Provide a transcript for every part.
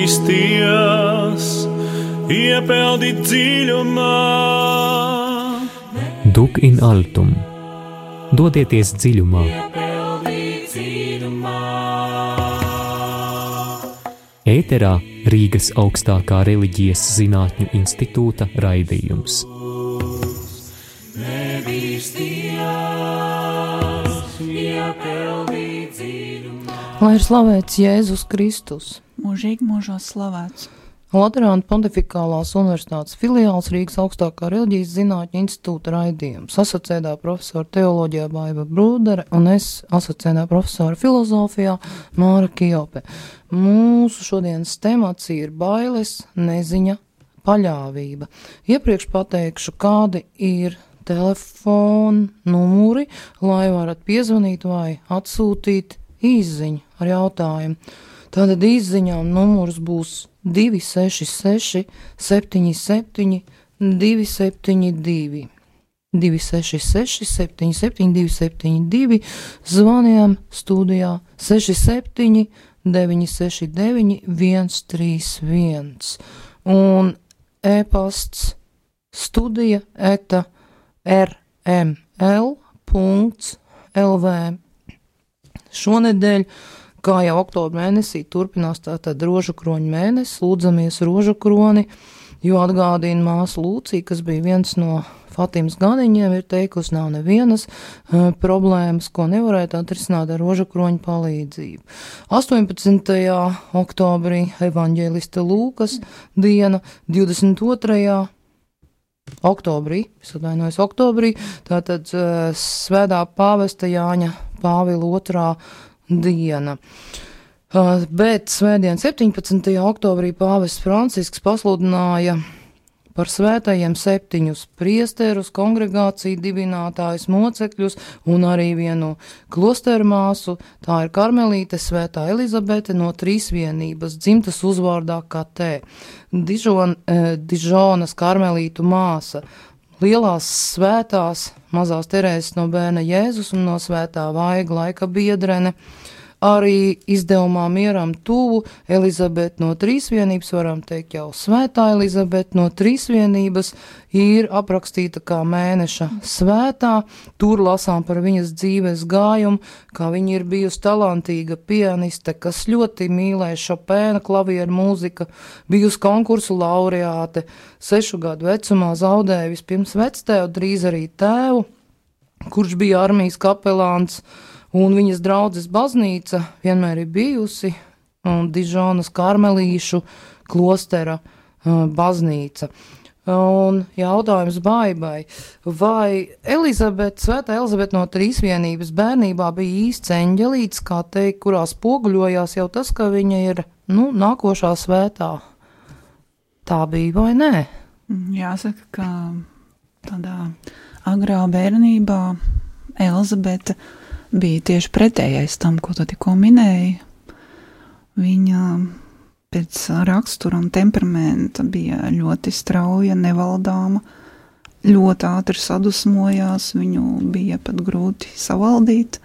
nebīsties, iepeldi dziļumā. Dug in altum. Dodieties dziļumā. Ēterā Rīgas augstākā reliģijas zinātņu institūta raidījums. Lai ir slavēts Jēzus Kristus. Mūžīgi mūžos slavēts. Laterāna Pontifikālās universitātes filiāls Rīgas augstākā reliģijas zinātņu institūta raidījums. Asociētā profesora teoloģijā Baiva Brūdere un es asociētā profesora filozofijā Māra Kijope. Mūsu šodienas temats ir bailes, neziņa, paļāvība. Iepriekš pateikšu, kādi ir telefona numuri, lai varat piezvanīt vai atsūtīt īsziņu ar jautājumu. Tātad īsziņām numurs būs 266 77 272. 266 77 272. Zvanījām studijā 67 969 131. Un e-pasts studija @rml.lv. Šonedēļ, kā jau oktobra mēnesī, turpinās tātad rožukroņu mēnesis, lūdzamies rožukroni, jo atgādina māsa Lūcija, kas bija viens no Fatimas ganiņiem, ir teikusi, nav nevienas problēmas, ko nevarētu atrisināt ar rožukroņu palīdzību. 18. oktobrī evaņģēlista Lūkas diena, 22. oktobrī, tātad svētā pāvesta Jāņa Pāvila 2. diena. Bet svētdien 17. oktobrī pāvests Francisks pasludināja par svētajiem 7 priesterus, kongregāciju dibinātājus, mocekļus un arī vienu klosteru māsu. Tā ir karmelīte svētā Elizabete no Trīsvienības, dzimtas uzvārdā Katē. Dižonas karmelītu māsa, lielās svētās mazās Terēzes no bērna Jēzus un no svētā Vaiga laika biedrene. Arī izdevumā Mieram tuvu Elizabete no Trīsvienības, varam teikt jau svētā Elizabete no Trīsvienības, ir aprakstīta kā mēneša svētā. Tur lasām par viņas dzīves gājumu, kā viņa ir bijusi talantīga pianiste, kas ļoti mīlēja Šopēna klavieru mūzika, bijusi konkursu laureāte, 6 gadu vecumā zaudēja vispirms vectēvu, drīz arī tēvu, kurš bija armijas kapelāns. Un viņas draudzes baznīca vienmēr ir bijusi Dižonas karmelīšu klostera baznīca. Un jautājums Baibai, vai svētā Elizabete no Trīsvienības bērnībā bija īsts eņģelīts, kā teikt, kurā spoguļojās jau tas, ka viņa ir, nākošā svētā? Tā bija vai nē? Jāsaka, ka tādā agrā bērnībā Elizabete bija tieši pretējais tam, ko tu tikko minēji. Viņa pēc rakstura un temperamenta bija ļoti strauja, nevaldāma, ļoti ātri sadusmojās, viņu bija pat grūti savaldīt.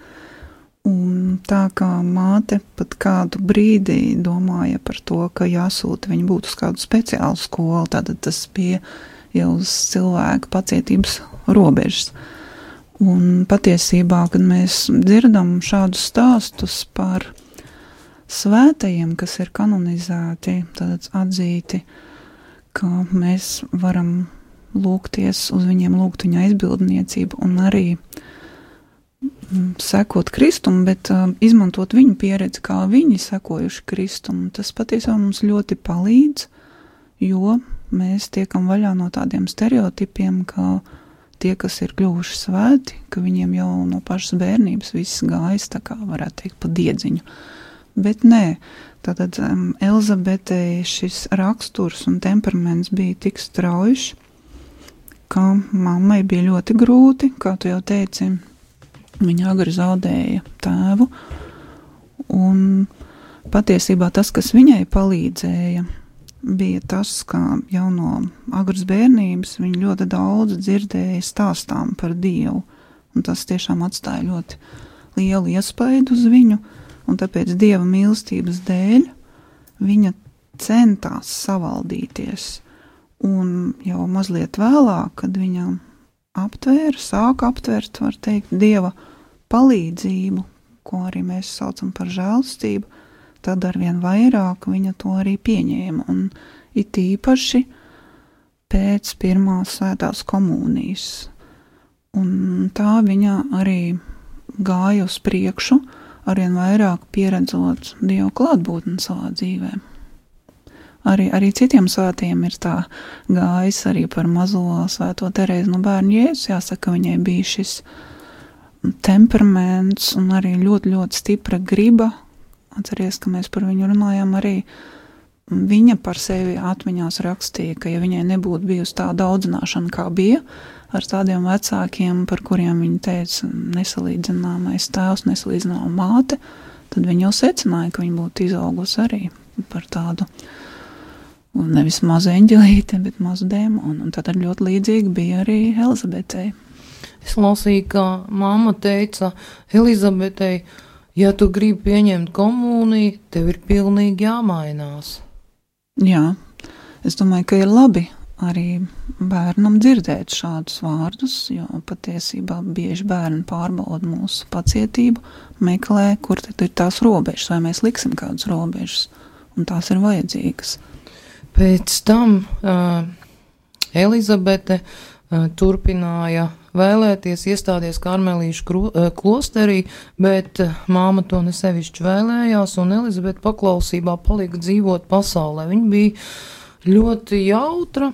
Un tā kā māte pat kādu brīdi domāja par to, ka jāsūta viņu būt uz kādu speciālu skolu, tad tas bija jau uz cilvēka pacietības robežas. Un patiesībā, kad mēs dzirdam šādus stāstus par svētajiem, kas ir kanonizēti, tad atzīti, ka mēs varam lūgties uz viņiem, lūgt viņa aizbildniecību un arī sekot Kristum, bet izmantot viņu pieredzi, kā viņi sekojuši Kristum. Tas patiesībā mums ļoti palīdz, jo mēs tiekam vaļā no tādiem stereotipiem, ka tie, kas ir kļuvuši svēti, ka viņiem jau no pašas bērnības viss gājis, tā kā varētu teikt, pa diedziņu. Bet nē, tātad Elizabetei šis raksturs un temperaments bija tik straujš, ka mammai bija ļoti grūti, kā tu jau teici, viņa agri zaudēja tēvu, un patiesībā tas, kas viņai palīdzēja, bija tas, ka jau no agras bērnības viņa ļoti daudz dzirdēja stāstām par Dievu, un tas tiešām atstāja ļoti lielu iespaidu uz viņu, un tāpēc Dieva mīlestības dēļ viņa centās savaldīties, un jau mazliet vēlāk, kad viņa sāka aptvērt, var teikt, Dieva palīdzību, ko arī mēs saucam par žēlastību, tad arvien vairāk viņa to arī pieņēma, un it īpaši pēc pirmās svētās komunijas. Un tā viņa arī gāja uz priekšu, arvien vairāk pieredzot Dievu klātbūtni savā dzīvē. Arī citiem svētiem ir tā gājis arī par mazo svēto Terēzi no Bērnu Jēzus. Jāsaka, viņai bija šis temperaments un arī ļoti, ļoti stipra griba. Atceries, ka mēs par viņu runājām arī. Viņa par sevi atmiņās rakstīja, ka ja viņai nebūtu bijusi tāda audzināšana, kā bija, ar tādiem vecākiem, par kuriem viņa teica nesalīdzināmais tēvs, nesalīdzināma māte, tad viņa jau secināja, ka viņa būtu izaugusi arī par tādu, nevis mazu eņģelīti, bet mazu dēmonu. Un tad ļoti līdzīgi bija arī Elizabetei. Es lasīju, ka mamma teica Elizabetei, ja tu gribi pieņemt komuniju, tev ir pilnīgi jāmainās. Jā, es domāju, ka ir labi arī bērnam dzirdēt šādus vārdus, jo patiesībā bieži bērni pārbauda mūsu pacietību, meklē, kur tad ir tās robežas, vai mēs liksim kādas robežas, un tās ir vajadzīgas. Pēc tam Elizabete turpināja vēlēties iestāties Karmelīšu klosterī, bet māma to nesevišķi vēlējās, un Elizabete paklausībā palika dzīvot pasaulē. Viņa bija ļoti jautra,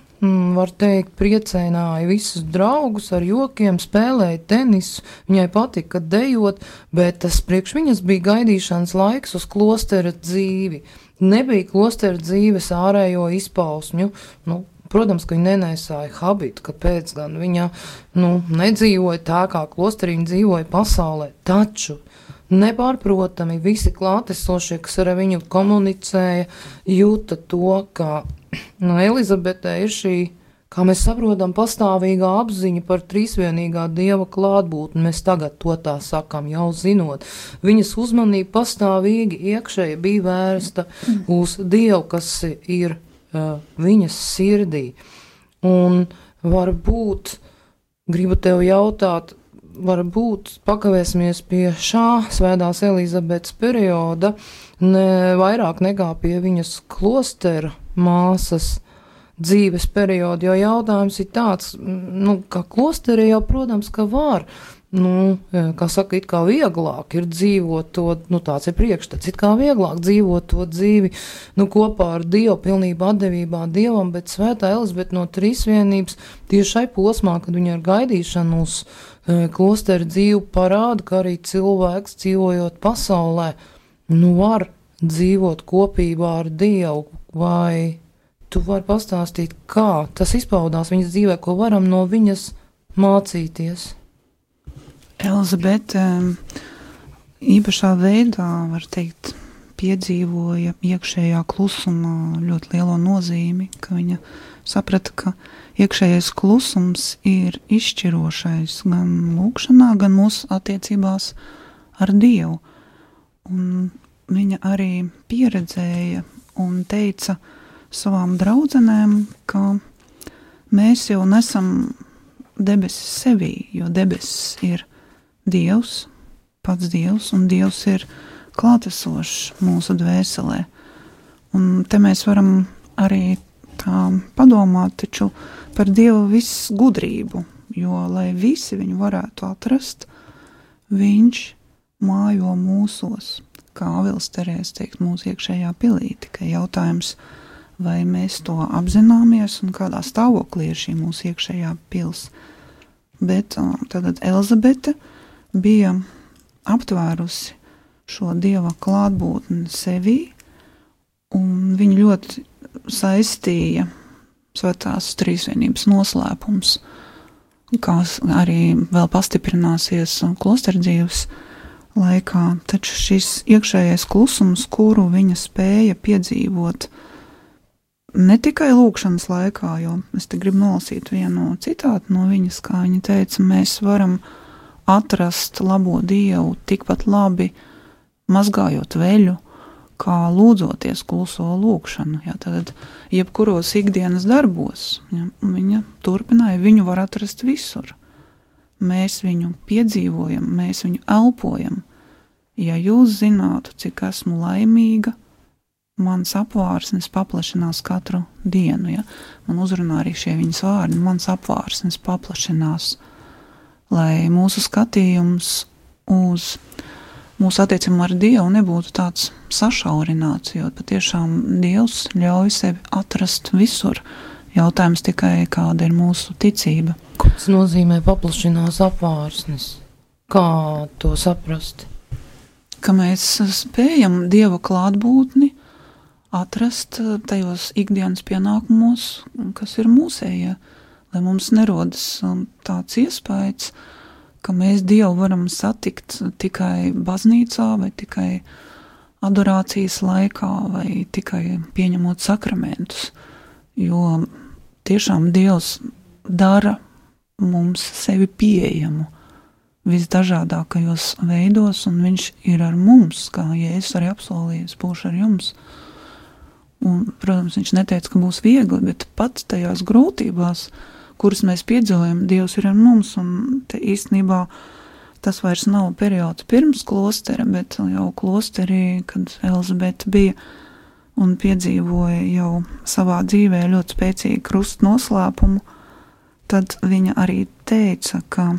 var teikt, priecēnāja visus draugus ar jokiem, spēlēja tenisu, viņai patika dejot, bet tas priekš viņas bija gaidīšanas laiks uz klostera dzīvi. Nebija klostera dzīves ārējo izpausmju, protams, ka viņa nenēsāja habitu, kāpēc gan viņa, nedzīvoja tā, kā klosterī viņa dzīvoja pasaulē, taču nepārprotami visi klātesošie, kas ar viņu komunicēja, jūta to, ka Elizabetē ir šī, kā mēs saprotam, pastāvīgā apziņa par trīsvienīgā Dieva klātbūtni. Mēs tagad to tā sakam, jau zinot. Viņas uzmanība pastāvīgi iekšēji bija vērsta uz Dievu, kas ir viņas sirdī. Un varbūt, gribu tev jautāt, varbūt pakavēsimies pie šā svētās Elizabetes perioda, ne vairāk nekā pie viņas klostera māsas dzīves periodu, jo jautājums ir tāds, ka klosterī jau, protams, ka var, kā saka, it kā vieglāk ir dzīvot to, tāds ir priekšstats, it kā vieglāk dzīvot to dzīvi, kopā ar Dievu, pilnībā atdevībā Dievam, bet svētā Elizabete no trīsvienības tieši šai posmā, kad viņa ar gaidīšanu uz klosteru dzīvi parāda, ka arī cilvēks dzīvojot pasaulē, var dzīvot kopībā ar Dievu, vai tu vari pastāstīt, kā tas izpaudās viņas dzīvē, ko varam no viņas mācīties? Elizabete īpašā veidā, var teikt, piedzīvoja iekšējā klusuma ļoti lielo nozīmi, ka viņa saprata, ka iekšējais klusums ir izšķirošais gan lūkšanā, gan mūsu attiecībās ar Dievu. Un viņa arī pieredzēja un teica savām draudzenēm, ka mēs jau nesam debesis sevī, jo debesis ir Dievs, pats Dievs, un Dievs ir klātesošs mūsu dvēselē. Un te mēs varam arī tā padomāt taču par Dieva visu gudrību, jo, lai visi viņu varētu atrast, viņš mājo mūsos, kā Āvils Terēze teikt, mūsu iekšējā pilī. Tikai jautājums, vai mēs to apzināmies un kādā stāvoklī ir šī mūsu iekšējā pils. Bet tad Elizabete bija aptvērusi šo Dieva klātbūtni sevī, un viņa ļoti saistīja svētās trīsvienības noslēpums, kas arī vēl pastiprināsies klosterdzīves laikā, taču šis iekšējais klusums, kuru viņa spēja piedzīvot ne tikai lūkšanas laikā, jo es te gribu nolasīt vienu citātu no viņas, kā viņa teica, mēs varam atrast labo Dievu tikpat labi, mazgājot veļu, kā lūdzoties kluso lūkšanu. Ja, tad jebkuros ikdienas darbos, ja, viņa turpināja, viņu var atrast visur. Mēs viņu piedzīvojam, mēs viņu elpojam. Ja jūs zinātu, cik esmu laimīga, mans apvārsnes paplašinās katru dienu. Ja? Man uzrunā arī šie viņas vārdi, mans apvārsnes paplašinās, lai mūsu skatījums uz mūsu attiecību ar Dievu nebūtu tāds sašaurināts, jo patiešām Dievs ļauj sevi atrast visur. Jautājums tikai, kāda ir mūsu ticība. Ko tas nozīmē paplašinās apvārsnes? Kā to saprast? Ka mēs spējam Dieva klātbūtni atrast tajos ikdienas pienākumos, kas ir mūsējie, lai mums nerodas tāds iespējas, ka mēs Dievu varam satikt tikai baznīcā vai tikai adorācijas laikā vai tikai pieņemot sakramentus, jo tiešām Dievs dara mums sevi pieejamu visdažādākajos veidos, un viņš ir ar mums, kā Jēzus arī apsolījis, būšu ar jums. Un, protams, viņš neteica, ka būs viegli, bet pat tajās grūtībās, kuras mēs piedzīvojam, Dievs ir ar mums, un te īstenībā tas vairs nav periods pirms klostera, bet jau klosterī, kad Elzabete bija un piedzīvoja jau savā dzīvē ļoti spēcīgu krustu noslēpumu, tad viņa arī teica, ka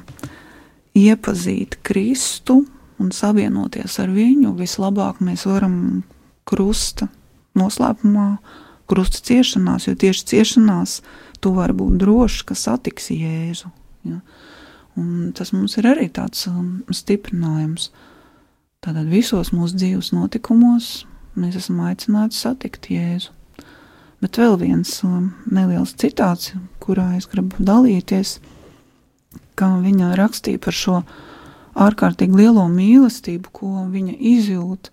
iepazīt Kristu un savienoties ar viņu vislabāk mēs varam krusta noslēpumā, krusta ciešanās, jo tieši ciešanās tu vari būt drošs, ka satiksi Jēzu. Ja? Un tas mums ir arī tāds stiprinājums. Tātad visos mūsu dzīves notikumos mēs esam aicināti satikt Jēzu. Bet vēl viens neliels citāts, kurā es gribu dalīties, kā viņa rakstīja par šo ārkārtīgi lielo mīlestību, ko viņa izjūt,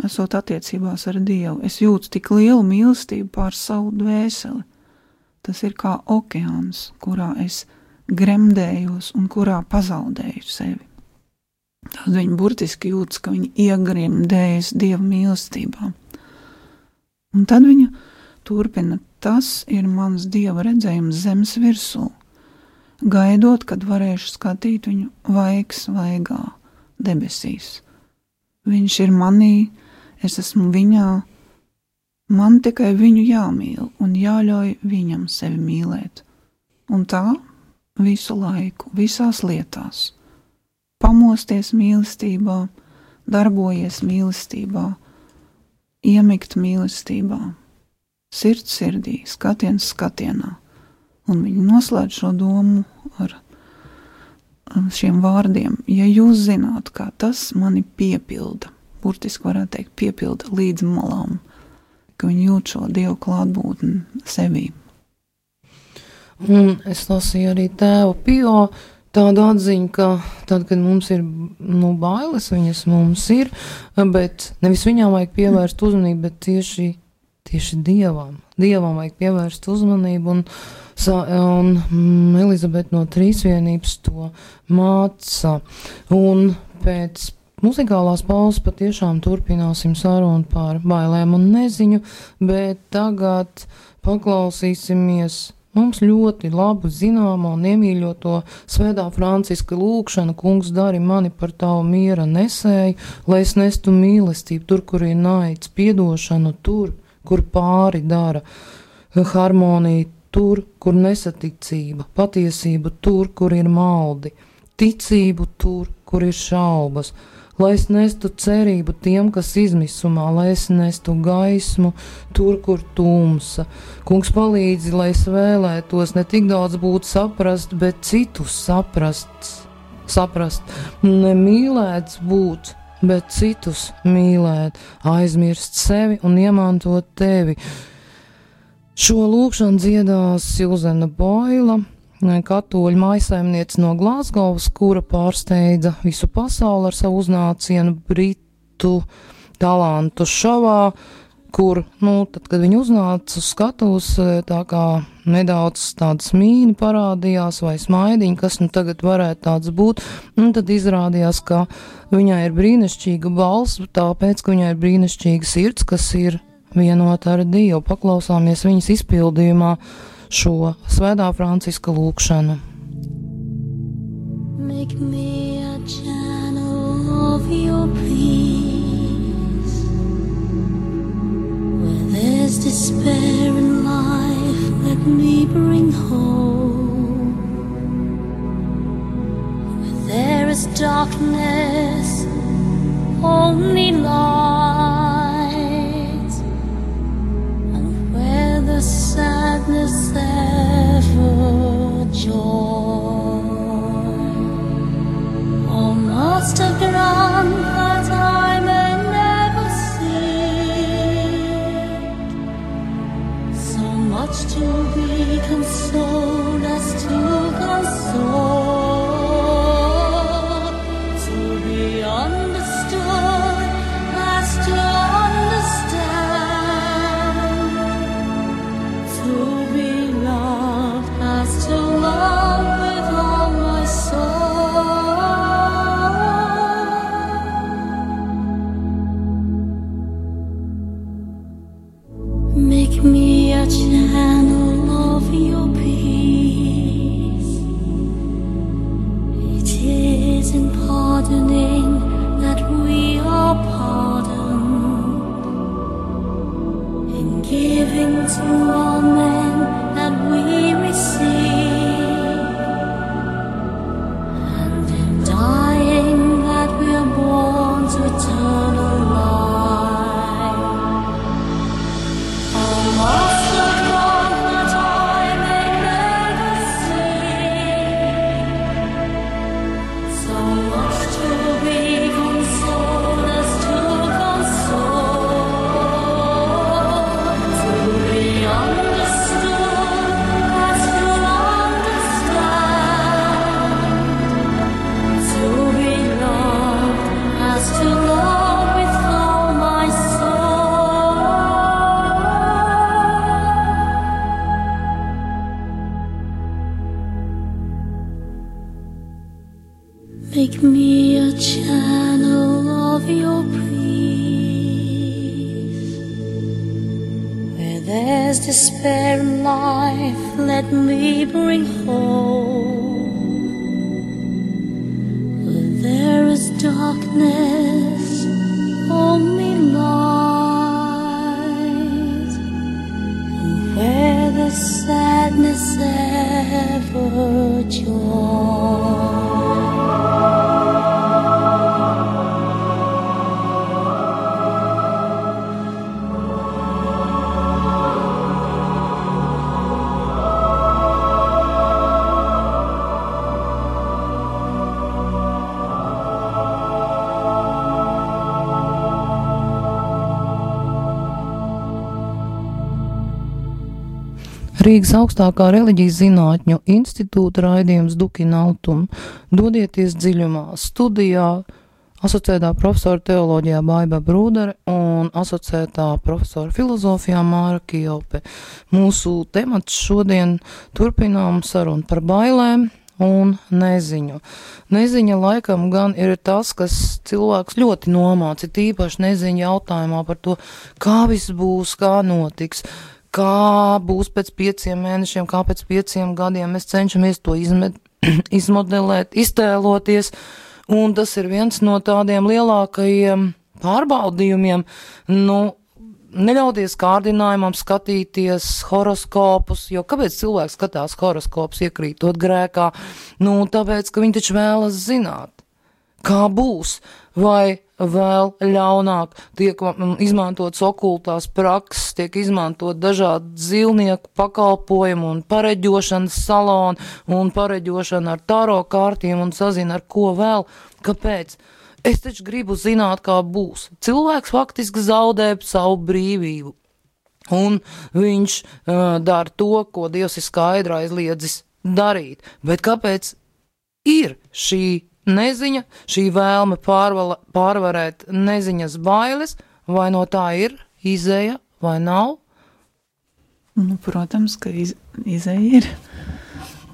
esot attiecībās ar Dievu. Es jūtu tik lielu mīlestību pār savu dvēseli. Tas ir kā okeāns, kurā es gremdējos un kurā pazaudēju sevi. Tad viņa burtiski jūtas, ka viņa iegremdējas Dieva mīlestībā. Un tad viņa turpina, tas ir mans Dieva redzējums zemes virsū, gaidot, kad varēšu skatīt viņu vaigs vaigā debesīs. Viņš ir manī, es esmu viņā, man tikai viņu jāmīl un jāļauj viņam sevi mīlēt. Un tā visu laiku, visās lietās. Pamosties mīlestībā, darbojies mīlestībā, iemigt mīlestībā, sirds sirdī, skatiens skatienā. Un viņi noslēdz šo domu ar šiem vārdiem. Ja jūs zināt, kā tas mani piepilda, burtiski varētu teikt, piepilda līdz malām, ka viņi jūt šo Dievu klātbūtni sevī. Un es lasīju arī tēva Pio tādu atziņu, ka tad, kad mums ir bailes, viņas mums ir, bet nevis viņām vajag pievērst uzmanību, bet tieši Dievam. Dievam vajag pievērst uzmanību, un Elizabete no Trīsvienības to māca. Un pēc muzikālās pauzes patiešām turpināsim sarunu par bailēm un neziņu, bet tagad paklausīsimies mums ļoti labu zināmo un iemīļoto Svētā Franciska lūgšanu: Kungs, dari mani par tavu miera nesēju, lai es nestu mīlestību tur, kur ir naids, piedošanu tur, kur pāri dara, harmoniju tur, kur nesaticība, patiesība tur, kur ir maldi, ticību tur, kur ir šaubas, lai es nestu cerību tiem, kas izmisumā, lai es nestu gaismu tur, kur tumsa. Kungs, palīdzi, lai es vēlētos ne tik daudz būt saprast, bet citus saprast, nemīlēts būt, bet citus mīlēt, aizmirst sevi un iemantot tevi. Šo lūkšanu dziedās Silzena Boila, katoļu mājsaimniece no Glāzgovas, kura pārsteidza visu pasauli ar savu uznācienu Britu talantu šovā, kur, tad, kad viņi uznāca uz skatuves, tā kā nedaudz tādas mīni parādījās vai smaidiņi, kas tagad varētu tāds būt, tad izrādījās, ka viņai ir brīnišķīga balss, tāpēc, ka viņai ir brīnišķīga sirds, kas ir vienota ar Dievu. Paklausāmies viņas izpildījumā šo Svētā Franciska lūgšanu. Make me a channel of your peace. Where there's despair in life, let me bring hope. Where there is darkness, only light. And where the sadness ever joy. Almost a ground that I may never see. So much to be consoled as to console. To be understood as to understand. To be loved as to love with all my soul. Make me a channel of your peace. It is in pardoning that we are pardoned, in giving to all men that we receive, and in dying that we are born to eternal life. Lost the wrong that I may never see. So much to be consoled as to console. To be understood as to understand. To be loved as to love with all my soul. Make me a channel of your peace. Where there's despair in life, let me bring hope. Where there is darkness, only light. And where the sadness ever joy. Rīgas augstākā reliģijas zinātņu institūta raidījums Dukina Altuma. Dodieties dziļumā. Studijā asociētā profesora teoloģijā Baiba Brūdere un asociētā profesora filozofijā Māra Kielpe. Mūsu temats šodien turpinām sarunu par bailēm un neziņu. Neziņa laikam gan ir tas, kas cilvēks ļoti nomāca, tīpaši neziņa jautājumā par to, kā viss būs, kā notiks, kā būs pēc 5 mēnešiem, kā pēc 5 gadiem. Mēs cenšamies to izmodelēt, iztēloties, un tas ir viens no tādiem lielākajiem pārbaudījumiem. Neļauties kārdinājumam skatīties horoskopus, jo kāpēc cilvēks skatās horoskopus iekrītot grēkā? Tāpēc, ka viņi taču vēlas zināt, kā būs, vai vēl ļaunāk tiek izmantotas okultās prakses, tiek izmantot dažādi dzīvnieku pakalpojumu un pareģošanas saloni un pareģošana ar taro kārtiem un sazina ar ko vēl. Kāpēc? Es taču gribu zināt, kā būs. Cilvēks faktiski zaudē savu brīvību. Un viņš dara to, ko Dievs ir skaidri aizliedzis darīt. Bet kāpēc ir šī neziņa, šī vēlme pārvarēt neziņas bailes, vai no tā ir izeja vai nav? Nu, protams, ka izeja ir.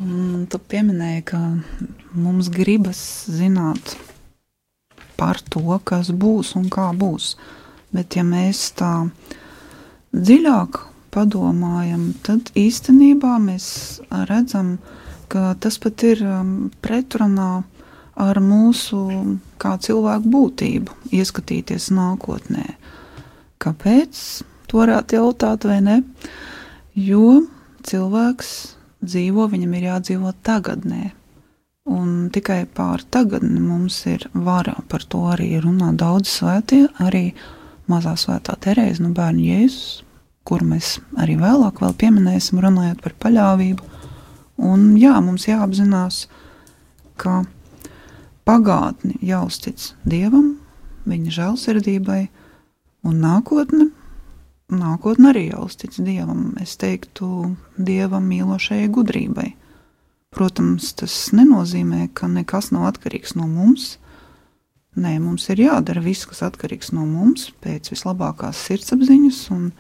Un tu pieminēji, ka mums gribas zināt par to, kas būs un kā būs. Bet ja mēs tā dziļāk padomājam, tad īstenībā mēs redzam, ka tas pat ir pretrunā ar mūsu kā cilvēku būtību, ieskatīties nākotnē. Kāpēc? To varētu jautāt vai ne? Jo cilvēks dzīvo, viņam ir jādzīvo tagadnē. Un tikai pār tagadni mums ir vara, par to arī runā daudz svētie, arī mazā svētā Terēze no Bērnu Jēzus, kuru mēs arī vēlāk vēl pieminēsim, runājot par paļāvību. Un jā, mums jāapzinās, ka pagātni jāuztic Dievam, viņa žēlsirdībai, un nākotne arī jāuztic Dievam, es teiktu, Dievam mīlošajai gudrībai. Protams, tas nenozīmē, ka nekas nav atkarīgs no mums. Nē, mums ir jādara viss, kas atkarīgs no mums, pēc vislabākās sirdsapziņas un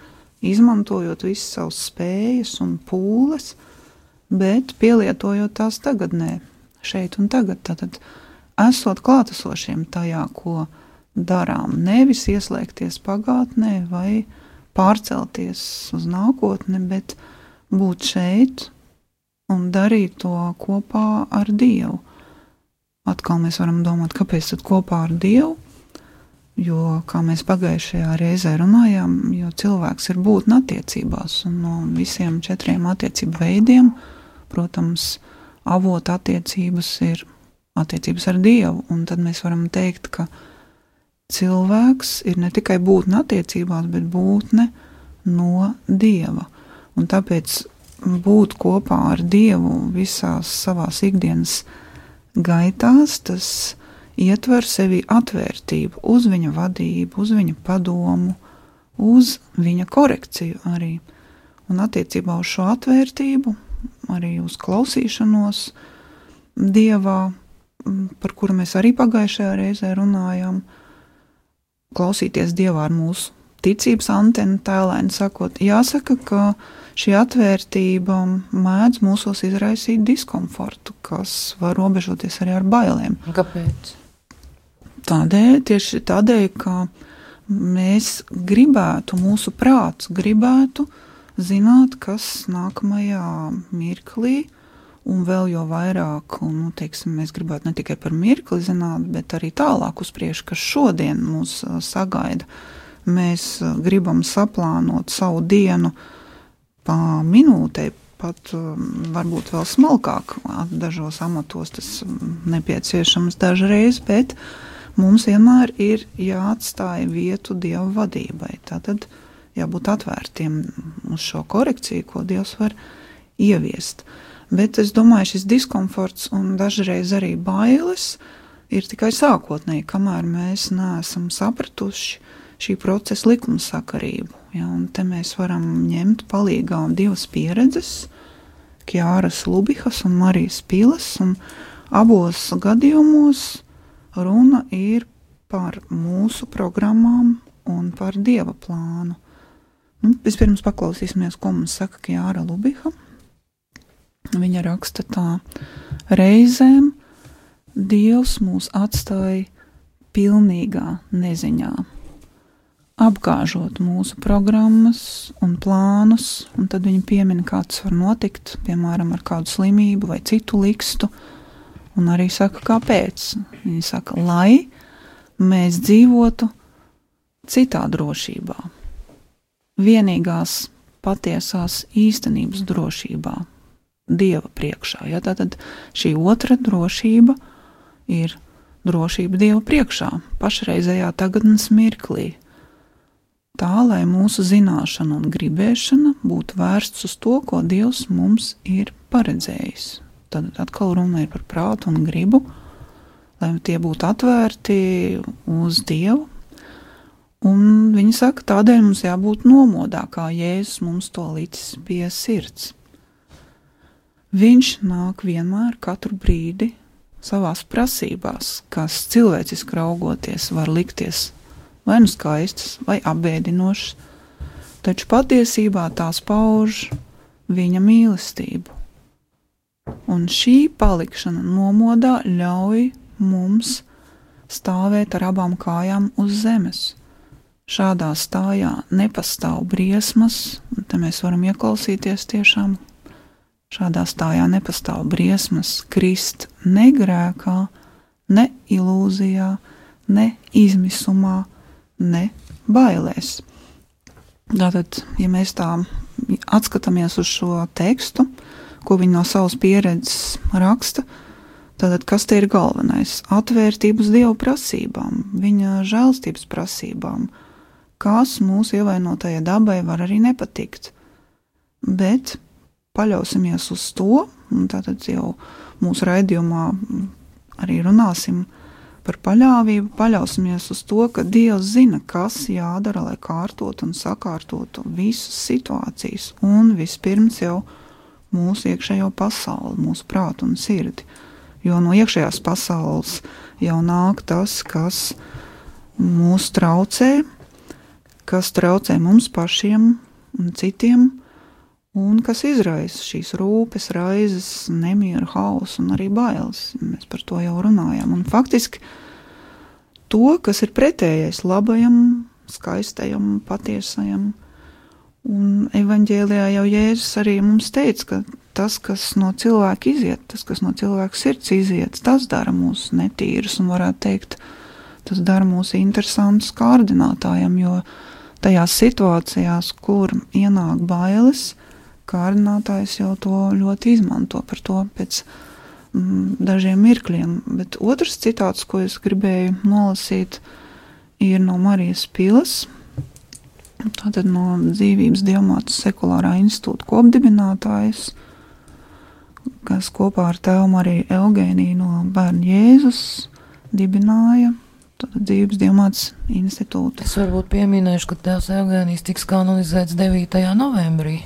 izmantojot visas savas spējas un pūles, bet pielietojot tās tagadnē, šeit un tagad, tātad esot klātesošiem tajā, ko darām, nevis ieslēgties pagātnē vai pārcelties uz nākotni, bet būt šeit un darīt to kopā ar Dievu. Atkal mēs varam domāt, kāpēc tad kopā ar Dievu, jo, kā mēs pagājušajā reizē runājām, jo cilvēks ir būtne attiecībās, un no visiem 4 attiecību veidiem, protams, avota attiecības ir attiecības ar Dievu, un tad mēs varam teikt, ka cilvēks ir ne tikai būtne attiecībās, bet būtne no Dieva, un tāpēc būt kopā ar Dievu visās savās ikdienas gaitās, tas ietver sevi atvērtību uz viņa vadību, uz viņa padomu, uz viņa korekciju arī. Un attiecībā uz šo atvērtību, arī uz klausīšanos Dievā, par kuru mēs arī pagājušajā reizē runājām, klausīties Dievā ar mūsu ticības antenu tēlēni sakot, jāsaka, ka šī atvērtība mēdz mūsos izraisīt diskomfortu, kas var robežoties arī ar bailēm. Kāpēc? Tieši tādēļ, ka mēs gribētu, mūsu prāts gribētu zināt, kas nākamajā mirklī, un vēl jo vairāk, un, teiksim, mēs gribētu ne tikai par mirkli zināt, bet arī tālāk uz priekšu, kas šodien mūs sagaida. Mēs gribam saplānot savu dienu pa minūtei, pat varbūt vēl smalkāk, dažos amatos tas nepieciešams dažreiz, bet mums vienmēr ir jāatstāja vietu Dieva vadībai. Tātad jābūt atvērtiem uz šo korekciju, ko Dievs var ieviest. Bet es domāju, šis diskomforts un dažreiz arī bailes ir tikai sākotnēji, kamēr mēs neesam sapratuši šī procesa likumsakarību. Ja, un te mēs varam ņemt palīgā 2 pieredzes, Kjāras Lubihas un Marijas Pilas, un abos gadījumos runa ir par mūsu programmām un par Dieva plānu. Vispirms paklausīsimies, ko mums saka Kjāra Lubiha. Viņa raksta tā: reizēm Dievs mūs atstāja pilnīgā neziņā, apgāžot mūsu programmas un plānus, un tad viņi piemina, kā tas var notikt, piemēram, ar kādu slimību vai citu likstu, un arī saka, kāpēc. Viņi saka, lai mēs dzīvotu citā drošībā, vienīgās patiesās īstenības drošībā, Dieva priekšā. Ja? Tātad šī otra drošība ir drošība Dieva priekšā, pašreizējā tagadnes mirklī. Tā, lai mūsu zināšana un gribēšana būtu vērsts uz to, ko Dievs mums ir paredzējis. Tad atkal runa ir par prātu un gribu, lai tie būtu atvērti uz Dievu. Un viņi saka, tādēļ mums jābūt nomodā, kā Jēzus mums to licis pie sirds. Viņš nāk vienmēr, katru brīdi, savās prasībās, kas cilvēciski raugoties var likties vai nu skaistas, vai apbēdinošas, taču patiesībā tās pauž viņa mīlestību. Un šī palikšana nomodā ļauj mums stāvēt ar abām kājām uz zemes. Šādā stājā nepastāv briesmas, un te mēs varam ieklausīties tiešām. Šādā stājā nepastāv briesmas krist ne grēkā, ne ilūzijā, ne izmisumā, ne bailēs. Tātad, ja mēs tā atskatāmies uz šo tekstu, ko viņi no savas pieredzes raksta, tātad kas te ir galvenais? Atvērtība uz Dieva prasībām, viņa žēlstības prasībām, kas mūsu ievainotajai dabai var arī nepatikt. Bet paļausimies uz to, un tātad jau mūsu raidījumā arī runāsim par paļāvību, paļausimies uz to, ka Dievs zina, kas jādara, lai kārtotu un sakārtotu visas situācijas, un vispirms jau mūsu iekšējo pasauli, mūsu prātu un sirdi. Jo no iekšējās pasaules jau nāk tas, kas mūs traucē, kas traucē mums pašiem un citiem, un kas izraisa šīs rūpes, raizes, nemieru, hausu un arī bailes. Mēs par to jau runājām. Un faktiski to, kas ir pretējais labajam, skaistajam, patiesajam. Un evaņģēlijā jau Jēzus arī mums teica, ka tas, kas no cilvēka iziet, tas, kas no cilvēka sirds iziet, tas dara mūs netīrus un varētu teikt, tas dara mūs interesantus kārdinātājiem, jo tajās situācijās, kur ienāk bailes, kārdinātājs jau to ļoti izmanto par to pēc dažiem mirkļiem. Bet otrs citāts, ko es gribēju nolasīt, ir no Marijas Pilas, tātad no Dzīvības Dievmātes sekulārā institūta kopdibinātājas, kas kopā ar tēvu Mariju Eugēniju no Bērnu Jēzus dibināja Dzīvības Dievmātes institūtu. Es varbūt pieminēšu, ka tēvs Eugēnijs tiks kanonizēts 9. novembrī.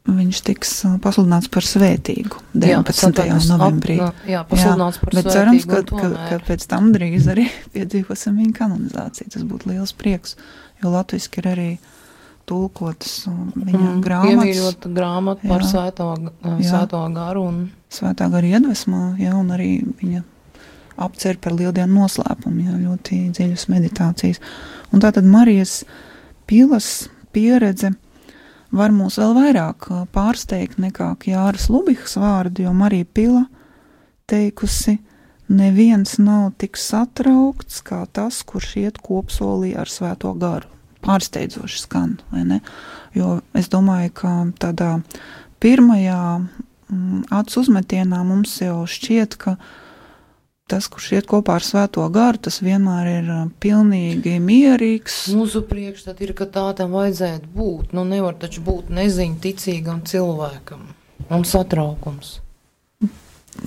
Viņš tiks pasludināts par svētīgu 19. novembrī. Pasludināts par bet svētīgu. Bet cerams, ka pēc tam drīz arī piedzīvosim viņa kanonizāciju. Tas būtu liels prieks, jo latviski ir arī tulkotas viņa grāmatas. Iemīļota grāmata par svētā garu. Svētā gara iedvesmā, un arī viņa apcer par lieldienu noslēpumu, ļoti dziļas meditācijas. Un tātad Marijas Pilas pieredze var mūs vēl vairāk pārsteigt nekā Jāras Lubihas vārdi, jo Marija Pila teikusi, neviens nav tik satraukts kā tas, kurš iet kopsolī ar svēto garu. Pārsteidzoši skan, vai ne? Jo es domāju, ka tādā pirmajā acu uzmetienā mums jau šķiet, ka tas, kurš iet kopā ar svēto garu, tas vienmēr ir pilnīgi mierīgs. Mūsu priekšstat ir, ka tā tam vajadzētu būt. Nevar taču būt neziņa ticīgam cilvēkam. Un satraukums.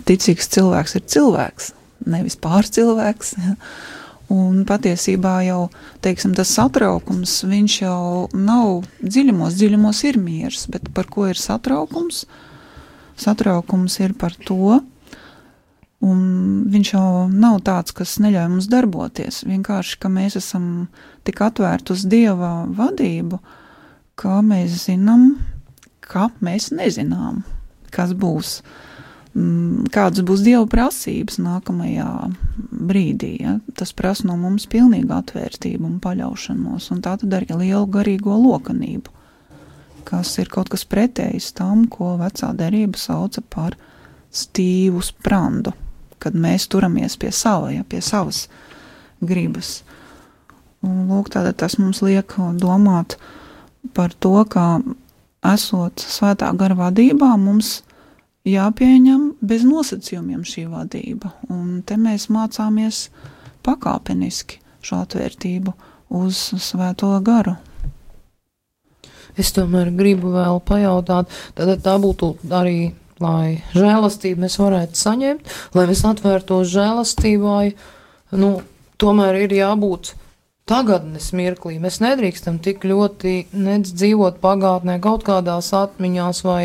Ticīgs cilvēks ir cilvēks, nevis pārcilvēks. Un patiesībā jau, teiksim, tas satraukums, viņš jau nav dziļumos ir miers, bet par ko ir satraukums? Satraukums ir par to, un viņš jau nav tāds, kas neļauj mums darboties. Vienkārši, ka mēs esam tik atvērti uz Dieva vadību, ka mēs zinām, ka mēs nezinām, kas būs, kādas būs Dieva prasības nākamajā brīdī. Ja? Tas prasa no mums pilnīgu atvērtību un paļaušanos, un tā tad arī lielu garīgo lokanību, kas ir kaut kas pretējs tam, ko vecā derība sauca par stīvu sprandu, kad mēs turamies pie savas gribas. Un lūk, tātad tas mums liek domāt par to, ka esot svētā gara vadībā, mums jāpieņem bez nosacījumiem šī vadība. Un te mēs mācāmies pakāpeniski šo atvērtību uz svēto garu. Es tomēr gribu vēl pajautāt, tad tā būtu arī, lai žēlastību mēs varētu saņemt, lai mēs atvērtos žēlastībai, tomēr ir jābūt tagadnes mirklī. Mēs nedrīkstam tik ļoti nedz dzīvot pagātnē, kaut kādās atmiņās vai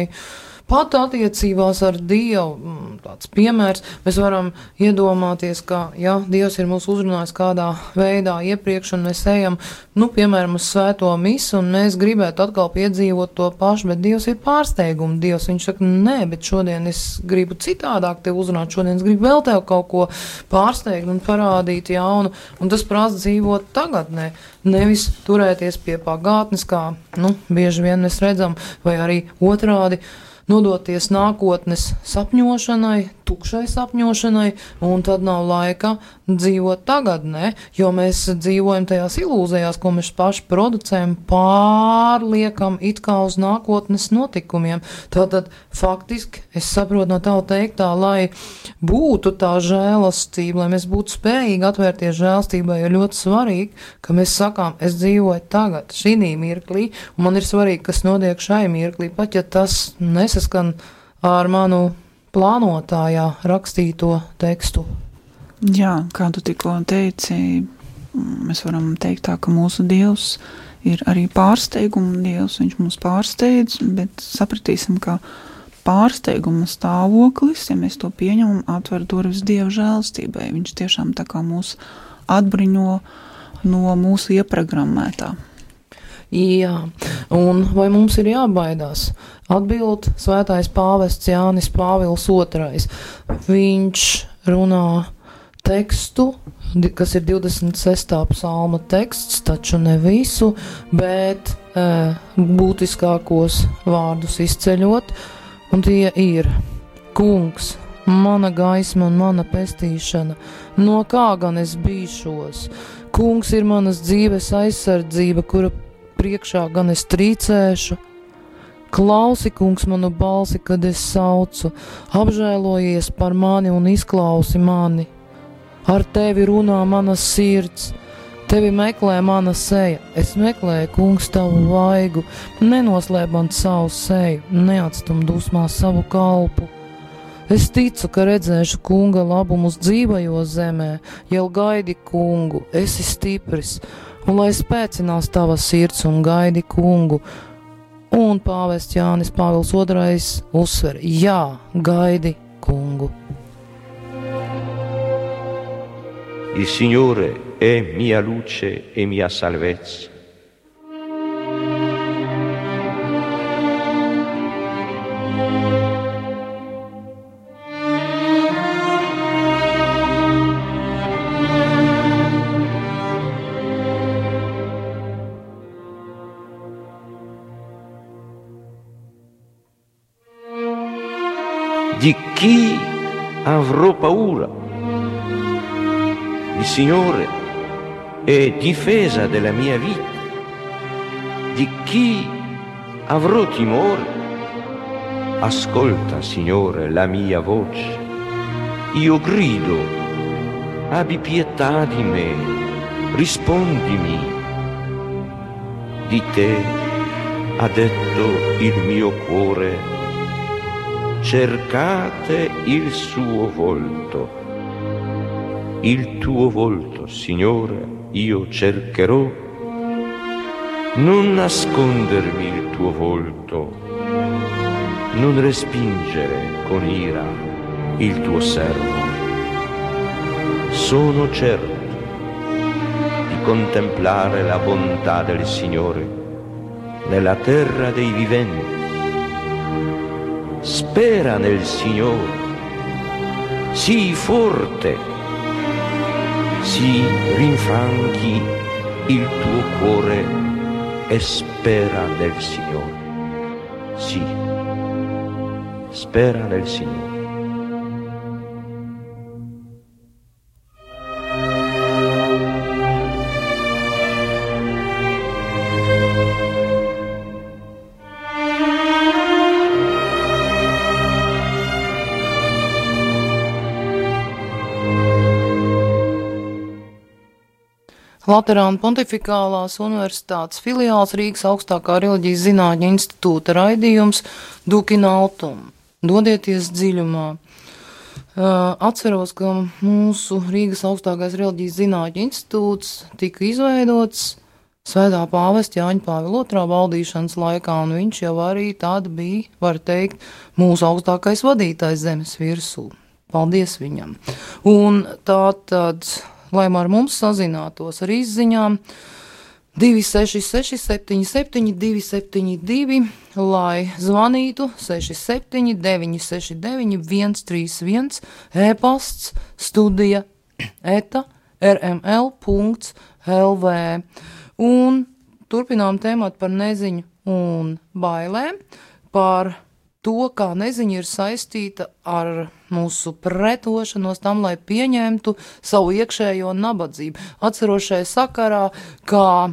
pat attiecībās ar Dievu, tāds piemērs, mēs varam iedomāties, ka, ja Dievs ir mūs uzrunājis kādā veidā iepriekš, un mēs ejam, piemēram, uz svēto misu, un mēs gribētu atkal piedzīvot to pašu, bet Dievs ir pārsteigums. Dievs, viņš saka, nē, bet šodien es gribu citādāk tev uzrunāt, šodien es gribu vēl tev kaut ko pārsteigt un parādīt jaunu, un tas prasa dzīvot tagadnē, nevis turēties pie pagātnes, kā, bieži vien mēs redzam, vai arī otrādi, nodoties nākotnes sapņošanai, tukšai sapņošanai, un tad nav laika dzīvot tagadnē, jo mēs dzīvojam tajās ilūzijās, ko mēs paši producējam, pārliekam it kā uz nākotnes notikumiem. Tātad faktiski es saprotu no tava teiktā, lai būtu tā žēlastība, lai mēs būtu spējīgi atvērties žēlastībai, ir ļoti svarīgi, ka mēs sakām, es dzīvoju tagad, šī mirklī, un man ir svarīgi, kas notiek šai mirklī, pat ja tas nesaskan ar manu plānotājā rakstīto tekstu. Jā, kā tu tikko teici, mēs varam teikt tā, ka mūsu Dievs ir arī pārsteiguma Dievs, viņš mūs pārsteidz, bet sapratīsim, ka pārsteiguma stāvoklis, ja mēs to pieņemam, atver durvis Dieva žēlastībai. Viņš tiešām tā kā mūs atbriņo no mūsu ieprogrammētā. Jā, un vai mums ir jābaidās? Atbild svētais pāvests Jānis Pāvils II. Viņš runā tekstu, kas ir 26. psalma teksts, taču ne visu, bet būtiskākos vārdus izceļot, un tie ir: Kungs, mana gaisma un mana pestīšana, no kā gan es bīšos? Kungs ir manas dzīves aizsardzība, kura priekšā gan es trīcēšu. Klausi, kungs, manu balsi, kad es saucu, apžēlojies par mani un izklausi mani. Ar tevi runā mana sirds, tevi meklē mana seja. Es meklēju, kungs, tavu vaigu, nenoslēp man savu seju, neatstum dusmās savu kalpu. Es ticu, ka redzēšu kunga labumus dzīvajos zemē, jau gaidi kungu, esi stipris, un lai spēcinās tava sirds un gaidi kungu. Un pāvests Jānis Pāvils II uzsver: jā, gaidi kungu. Il Signore è mia luce e mia salvezza. Di chi avrò paura? Il Signore è difesa della mia vita. Di chi avrò timore? Ascolta, Signore, la mia voce. Io grido, abbi pietà di me, rispondimi. Di te ha detto il mio cuore: cercate il suo volto. Il tuo volto, Signore, io cercherò. Non nascondermi il tuo volto, non respingere con ira il tuo servo. Sono certo di contemplare la bontà del Signore nella terra dei viventi. Spera nel Signore, sii forte, si rinfranchi il tuo cuore e spera nel Signore. Sì, spera nel Signore. Laterāna Pontifikālās universitātes filiāls Rīgas augstākā reliģijas zinātņu institūta raidījums Duc in Altum. Dodieties dziļumā. Atceros, ka mūsu Rīgas augstākais reliģijas zinātņu institūts tika izveidots Svētā pāvesta Jāņa Pāvila II valdīšanas laikā, un viņš jau arī tad bija, var teikt, mūsu augstākais vadītājs zemes virsū. Paldies viņam. Un tātad, lai ar mums sazinātos ar izziņām, 266 77 272, lai zvanītu 67 969 131, e-pasts studija @rml.lv. Un turpinām tēmāt par neziņu un bailēm, par to, kā neziņa ir saistīta ar mūsu pretošanos tam, lai pieņemtu savu iekšējo nabadzību. Atceros šajā sakarā, kā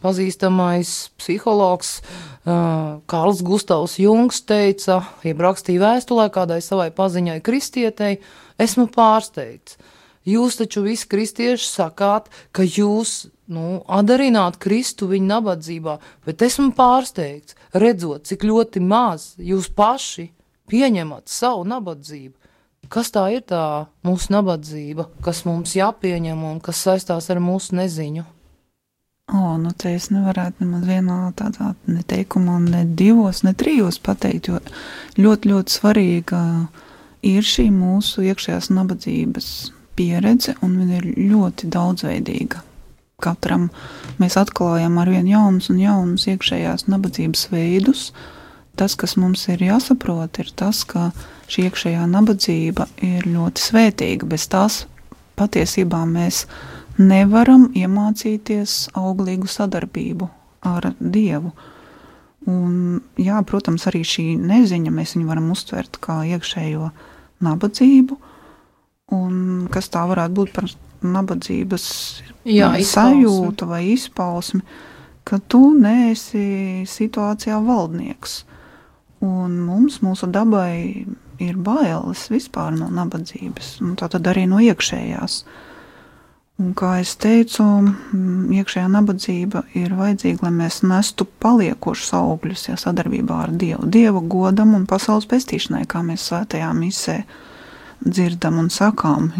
pazīstamais psihologs Kārls Gustavs Jungs teica, jeb rakstīja vēstulē kādai savai paziņai kristietei, esmu pārsteigts. Jūs taču visi kristieši sakāt, ka jūs atdarināt Kristu viņa nabadzībā, bet esmu pārsteigts, redzot, cik ļoti maz jūs paši pieņemat savu nabadzību. Kas tā ir tā mūsu nabadzība, kas mums jāpieņem un kas saistās ar mūsu neziņu? Te es nevarētu nemaz vienā tādā neteikumā, ne divos, ne trijos pateikt, jo ļoti, ļoti svarīga ir šī mūsu iekšējās nabadzības pieredze, un viņa ir ļoti daudzveidīga. Katram mēs atklājam arvien jaunus un jaunus iekšējās nabadzības veidus. Tas, kas mums ir jāsaprot, ir tas, ka šī iekšējā nabadzība ir ļoti svētīga. Bez tās patiesībā mēs nevaram iemācīties auglīgu sadarbību ar Dievu. Un, jā, protams, arī šī neziņa mēs viņu varam uztvert kā iekšējo nabadzību, un kas tā varētu būt par nabadzības sajūtu vai izpausmi, ka tu neesi situācijā valdnieks. Un mūsu dabai ir bailes vispār no nabadzības, un tātad arī no iekšējās. Un, kā es teicu, iekšējā nabadzība ir vajadzīga, lai mēs nestu paliekošus augļus, sadarbībā ar Dievu. Dieva godam un pasaules pestīšanai, kā mēs svētajā misē dzirdam un sakām,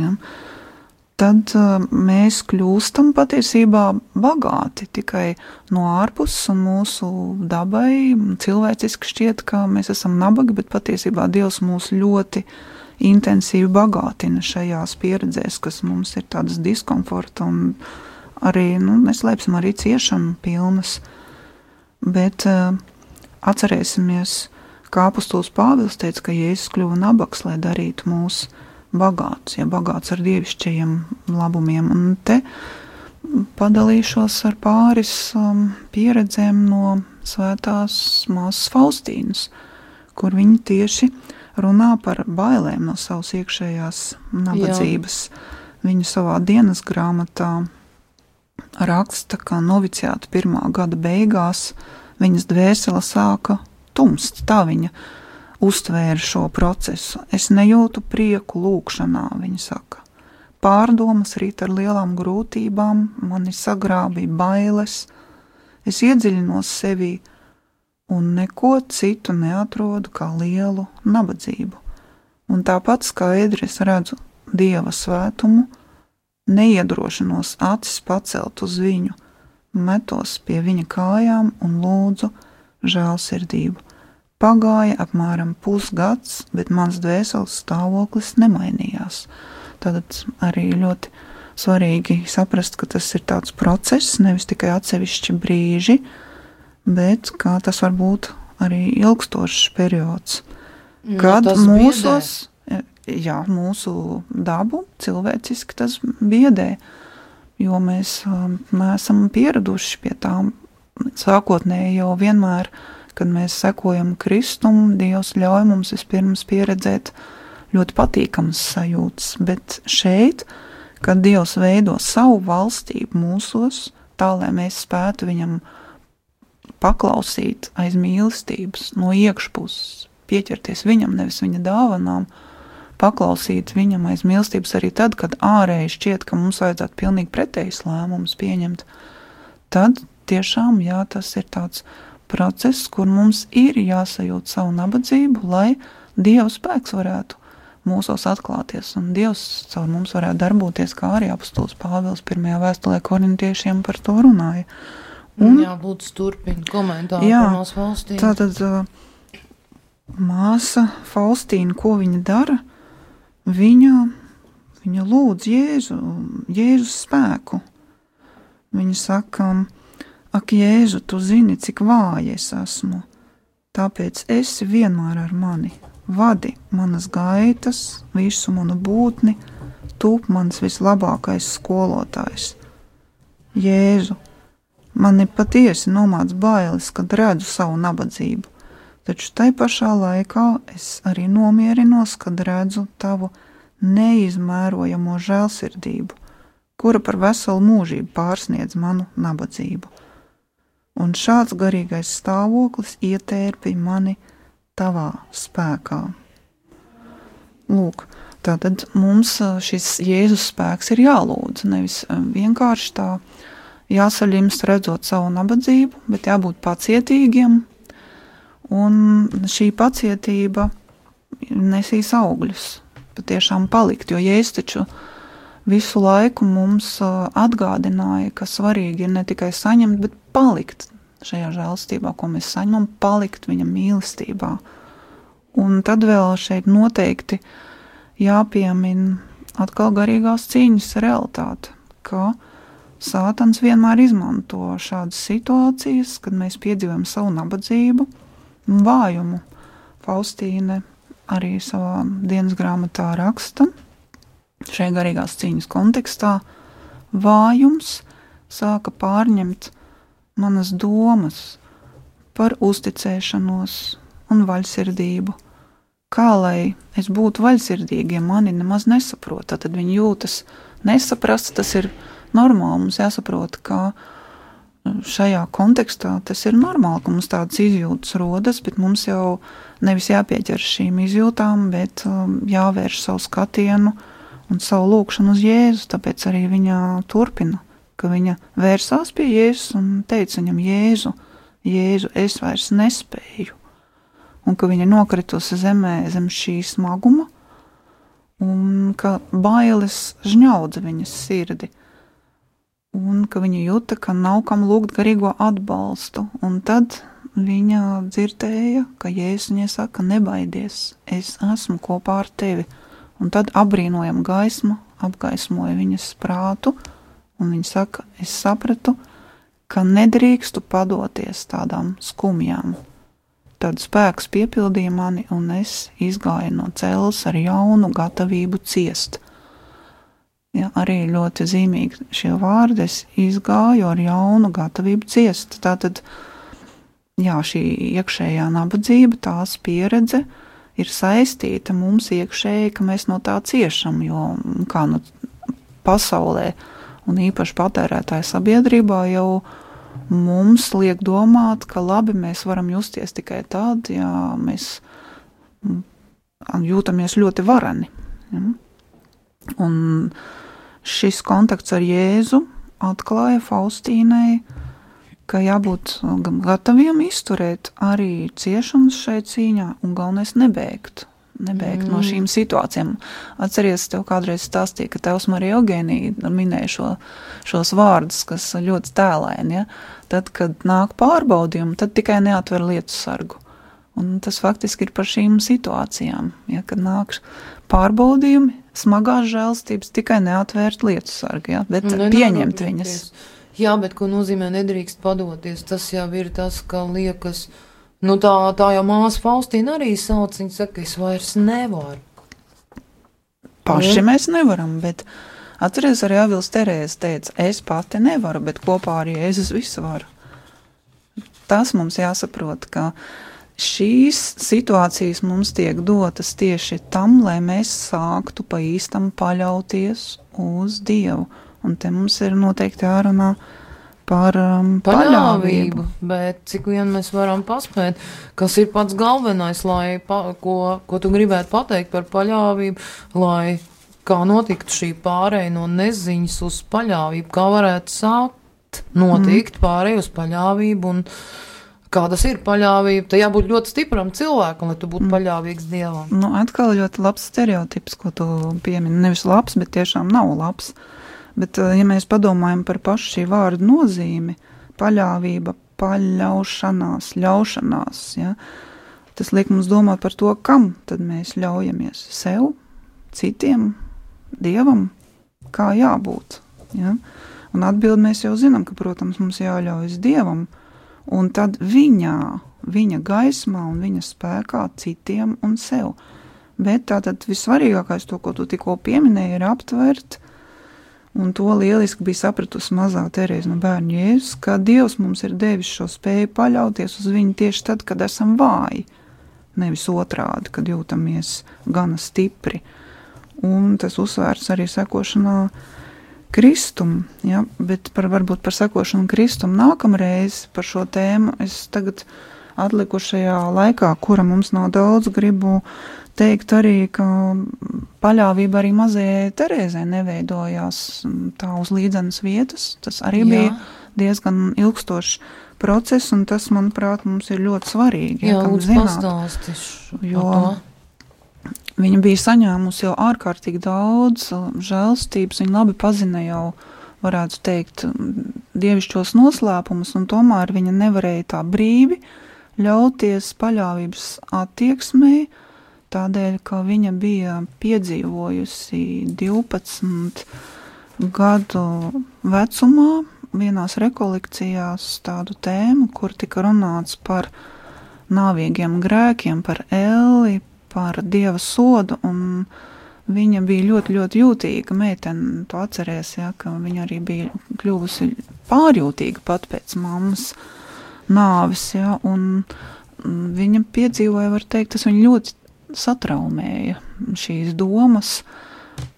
tad mēs kļūstam patiesībā bagāti tikai no ārpuses, un mūsu dabai cilvēciski šķiet, ka mēs esam nabagi, bet patiesībā Dievs mūs ļoti intensīvi bagātina šajās pieredzēs, kas mums ir tādas diskomforta un arī, neslēpsim, arī ciešanu pilnas. Bet atcerēsimies, kā apostols Pāvils teica, ka Jēzus kļuva nabaks, lai darītu mūs bagāts, bagāts ar dievišķajiem labumiem. Un te padalīšos ar pāris pieredzēm no svētās māsas Faustīnas, kur viņi tieši runā par bailēm no savas iekšējās nabadzības. Viņa savā dienas grāmatā raksta, ka noviciāta 1. gada beigās viņas dvēsele sāka tumst. Tā viņa uztvēra šo procesu. Es nejūtu prieku lūkšanā, viņa saka. Pārdomas rīt ar lielām grūtībām, mani sagrābīja bailes, es iedziļinos sevī un neko citu neatrodu kā lielu nabadzību. Un tāpat skaidri es redzu Dieva svētumu, neiedrošinos acis pacelt uz viņu, metos pie viņa kājām un lūdzu žēlsirdību. Pagāja apmēram pusgads, bet mans dvēseles stāvoklis nemainījās. Tātad arī ļoti svarīgi saprast, ka tas ir tāds process, nevis tikai atsevišķi brīži, bet kā tas var būt arī ilgstošs periods. Kad mūsu dabu cilvēciski tas biedē, jo mēs neesam pieraduši pie tām sākotnēji jau vienmēr. Kad mēs sekojam Kristum, Dievs ļauj mums vispirms pieredzēt ļoti patīkamas sajūtas, bet šeit, kad Dievs veido savu valstību mūsos, tā, lai mēs spētu viņam paklausīt aiz mīlestības, no iekšpuses, pieķerties viņam, nevis viņa dāvanām, paklausīt viņam aiz mīlestības arī tad, kad ārēji šķiet, ka mums vajadzētu pilnīgi pretējs lēmums pieņemt, tad tiešām, tas ir tāds process, kur mums ir jāsajūt savu nabadzību, lai Dieva spēks varētu mūsos atklāties, un Dievs caur mums varētu darboties, kā arī apostols Pāvils 1. vēstulē korintiešiem par to runāja. Jā, lūdzu turpini komentāru par mūsu Faustīnu. Tātad māsa Faustīna, ko viņa dara? Viņa lūdz Jēzus spēku. Viņa saka, ak, Jēzu, tu zini, cik vāja es esmu, tāpēc esi vienmēr ar mani. Vadi manas gaitas, visu manu būtni, tūp mans vislabākais skolotājs. Jēzu, mani patiesi nomāc bailes, kad redzu savu nabadzību, taču tai pašā laikā es arī nomierinos, kad redzu tavu neizmērojamo žēlsirdību, kura par veselu mūžību pārsniedz manu nabadzību. Un šāds garīgais stāvoklis ietērpi mani tavā spēkā. Lūk, tātad mums šis Jēzus spēks ir jālūdz, nevis vienkārši tā jāsaļimst redzot savu nabadzību, bet jābūt pacietīgiem, un šī pacietība nesīs augļus, patiešām palikt, jo Jēzus taču visu laiku mums atgādināja, ka svarīgi ir ne tikai saņemt, bet palikt šajā žēlstībā, ko mēs saņemam, palikt viņa mīlestībā. Un tad vēl šeit noteikti jāpiemin atkal garīgās cīņas realitāte, ka Sātans vienmēr izmanto šādas situācijas, kad mēs piedzīvojam savu nabadzību un vājumu. Faustīne arī savā dienas grāmatā raksta, šajā garīgās cīņas kontekstā, vājums sāka pārņemt manas domas par uzticēšanos un vaļsirdību. Kā lai es būtu vaļsirdīgi, ja mani nemaz nesaprot, tad viņi jūtas nesaprast, tas ir normāli, mums jāsaprot, ka šajā kontekstā tas ir normāli, ka mums tādas izjūtas rodas, bet mums jau nevis jāpieķer šīm izjūtām, bet jāvērš savu skatienu un savu lūkšanu uz Jēzu, tāpēc arī viņa turpina, ka viņa vērsās pie Jēzus un teica viņam, Jēzu, es vairs nespēju, un ka viņa nokritusi zemē zem šī smaguma, un ka bailes žņaudza viņas sirdi, un ka viņa jūta, ka nav kam lūgt garīgo atbalstu, un tad viņa dzirdēja, ka Jēzus viņai saka, nebaidies, es esmu kopā ar tevi, un tad apbrīnojama gaisma apgaismoja viņas prātu, un viņa saka, es sapratu, ka nedrīkstu padoties tādām skumjām. Tad spēks piepildīja mani, un es izgāju no celles ar jaunu gatavību ciest. Ja, arī ļoti zīmīgi šie vārdi, es izgāju ar jaunu gatavību ciest. Tātad, jā, šī iekšējā nabadzība, tās pieredze ir saistīta mums iekšēji, ka mēs no tā ciešam, jo kā nu pasaulē un īpaši patērētāju sabiedrībā jau mums liek domāt, ka labi, mēs varam justies tikai tad, ja mēs jūtamies ļoti vareni. Ja? Un šis kontakts ar Jēzu atklāja Faustīnai, ka jābūt gataviem izturēt arī ciešanas šai cīņā un galvenais nebeigt no šīm situācijām. Atceries, tev kādreiz stāstīja, ka tevs Marija Eugēnija minēja šos vārdus, kas ļoti tēlaini, ja? Tad, kad nāk pārbaudījumi, tad tikai neatver lietu sargu. Un tas faktiski ir par šīm situācijām, ja? Kad nāk pārbaudījumi, smagās žēlstības, tikai neatvērt lietu sargu, ja? Bet pieņemt viņas. Jā, bet ko nozīmē nedrīkst padoties, tas jau ir tas, ka liekas, nu tā jau māsa Faustīna arī sauc, viņa saka, es vairs nevaru. Paši mēs nevaram, bet atceries arī Avils Terēze teica, es pati nevaru, bet kopā arī Jēzus visu varu. Tas mums jāsaprot, ka šīs situācijas mums tiek dotas tieši tam, lai mēs sāktu pa īstam paļauties uz Dievu. Un te mums ir noteikti jārunā par paļāvību. Bet cik vien mēs varam paspēt, kas ir pats galvenais, lai ko tu gribētu pateikt par paļāvību, lai kā notiktu šī pārēja no neziņas uz paļāvību, kā varētu sākt notikt pārēja uz paļāvību un kā tas ir paļāvība, tad jābūt ļoti stipram cilvēkam, lai tu būtu paļāvīgs Dievam. Nu, atkal ļoti labs stereotips, ko tu piemini. Nevis labs, bet tiešām nav labs. Bet, ja mēs padomājam par pašu šī vārda nozīmi, paļāvība, paļaušanās, ļaušanās, ja, tas liek mums domāt par to, kam tad mēs ļaujamies. Sev, citiem, Dievam, kā jābūt. Ja? Un atbildi mēs jau zinām, ka, protams, mums jāļaujas Dievam, un tad viņa gaismā un viņa spēkā citiem un sev. Bet tātad vissvarīgākais, to, ko tu tikko pieminēji, ir aptvert, un to lieliski bija sapratusi mazā Terēze no bērnu Jēzus, ka Dievs mums ir devis šo spēju paļauties uz viņu tieši tad, kad esam vāji, nevis otrādi, kad jūtamies gana stipri. Un tas uzsvērts arī sekošanā Kristum, ja, bet varbūt par sekošanu Kristum nākamreiz par šo tēmu es tagad atlikušajā laikā, kura mums nav daudz, gribu teikt arī, ka paļāvība arī mazajai Terēzei neveidojās tā uz līdzenas vietas. Tas arī bija diezgan ilgstošs process, un tas, manuprāt, mums ir ļoti svarīgi. Jā, lūdzu pastāstīšu. Jo viņa bija saņēmusi jau ārkārtīgi daudz žēlstības, viņa labi pazina jau, varētu teikt, dievišķos noslēpumus, un tomēr viņa nevarēja tā brīvi ļauties paļāvības attieksmei, tādēļ, ka viņa bija piedzīvojusi 12 gadu vecumā vienās rekolekcijās tādu tēmu, kur tika runāts par nāvīgiem grēkiem, par elli, par Dieva sodu, un viņa bija ļoti, ļoti jūtīga meitene, to atceries, ja, ka viņa arī bija kļuvusi pārjūtīga pat pēc mammas nāves, ja, un viņa piedzīvoja, var teikt, tas viņa ļoti satraumēja šīs domas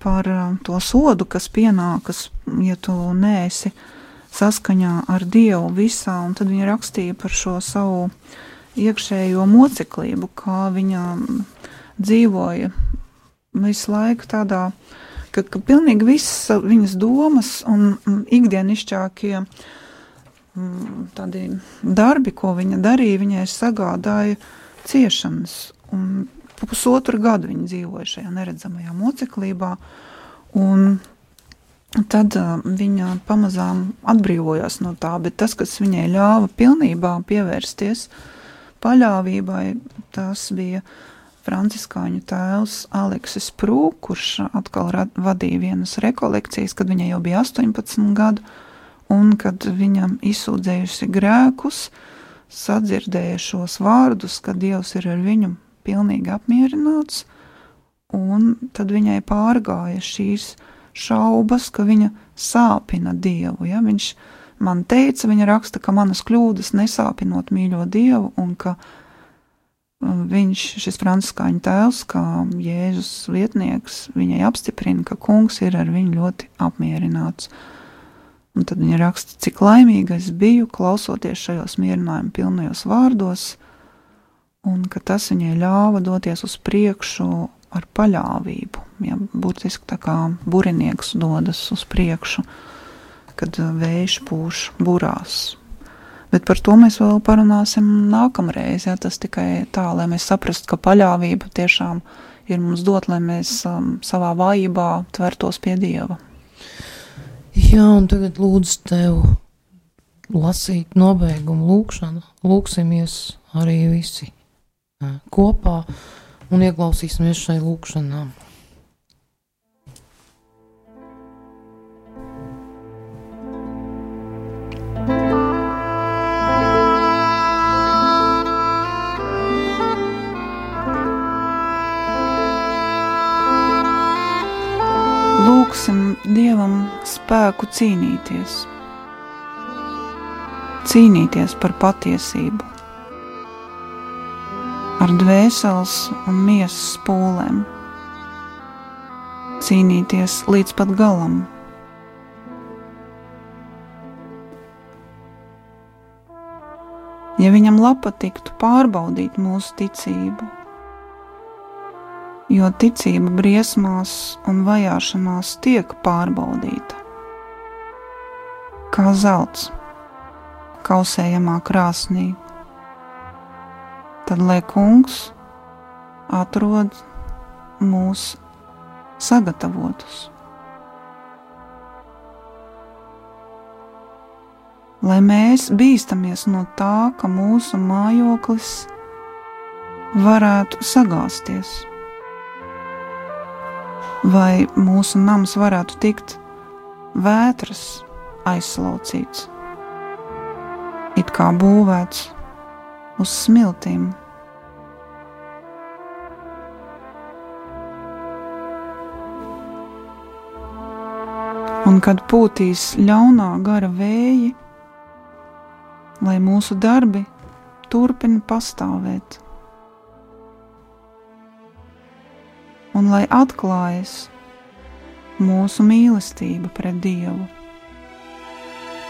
par to sodu, kas pienākas, ja tu neesi saskaņā ar Dievu visā, un tad viņa rakstīja par šo savu iekšējo moceklību, kā viņa dzīvoja visu laiku tādā, ka pilnīgi visas viņas domas un ikdienišķākie tādi darbi, ko viņa darīja, viņai sagādāja ciešanas. Un 1,5 gadu viņa dzīvoja šajā neredzamajā moceklībā, un tad viņa pamazām atbrīvojās no tā, bet tas, kas viņai ļāva pilnībā pievērsties paļāvībai, tas bija franciskāņu tēvs Aleksis Prū, kurš atkal vadīja vienas rekolekcijas, kad viņai jau bija 18 gadu, un kad viņam izsūdzējusi grēkus, sadzirdēja šos vārdus, ka Dievs ir ar viņu pilnīgi apmierināts, un tad viņai pārgāja šīs šaubas, ka viņa sāpina Dievu. Ja? Viņš man teica, viņa raksta, ka manas kļūdas nesāpinot mīļo Dievu, un ka viņš, šis franciskāņu tēvs, kā Jēzus vietnieks, viņai apstiprina, ka kungs ir ar viņu ļoti apmierināts. Un tad viņa raksta, cik laimīga es biju, klausoties šajos mierinājumu pilnajos vārdos, un ka tas viņai ļāva doties uz priekšu ar paļāvību. Ja, būtiski tā kā burinieks dodas uz priekšu, kad vējš pūš burās. Bet par to mēs vēl parunāsim nākamreiz. Ja, tas tikai tā, lai mēs saprastu, ka paļāvība tiešām ir mums dot, lai mēs savā vājībā tvertos pie Dieva. Jā, un tagad lūdzu tev lasīt nobeigumu lūkšanu. Lūksimies arī visi kopā un ieklausīsimies šai lūkšanā. Lūksim Dievam spēku cīnīties par patiesību, ar dvēseles un miesas pūlēm, cīnīties līdz pat galam. Ja viņam patiktu pārbaudīt mūsu ticību, jo ticība briesmās un vajāšanās tiek pārbaudīta, kā zelts kausējamā krāsnī, tad lai Kungs atrod mūs sagatavotus. Lai mēs bīstamies no tā, ka mūsu mājoklis varētu sagāsties, vai mūsu nams varētu tikt vētras aizslaucīts, it kā būvēts uz smiltīm. Un kad pūtīs ļaunā gara vēji, lai mūsu darbi turpina pastāvēt, un lai atklājas mūsu mīlestība pret Dievu,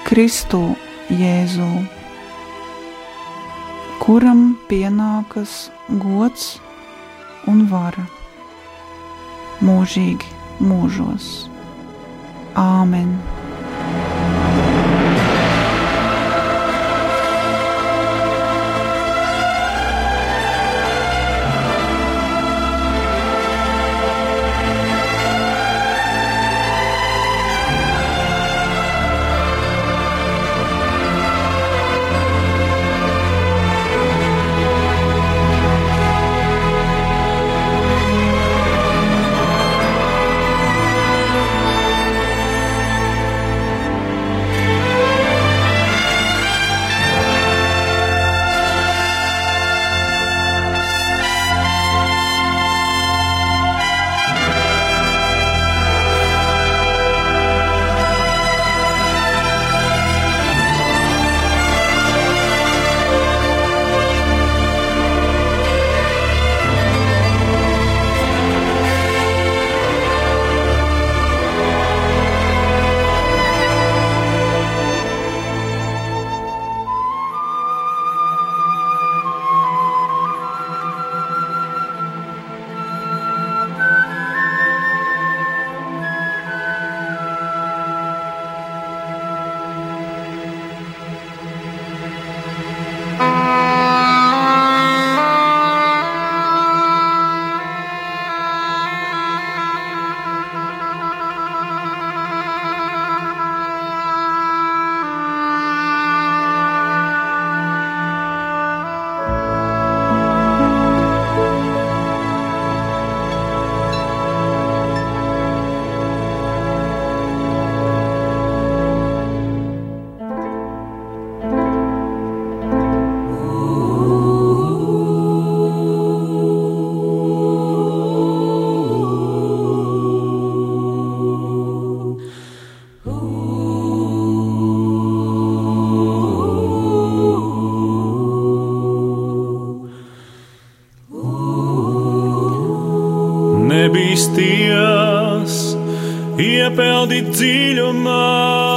Kristu Jēzu, kuram pienākas gods un vara mūžīgi mūžos. Āmen. Nebīsties, iepeldi dziļumā.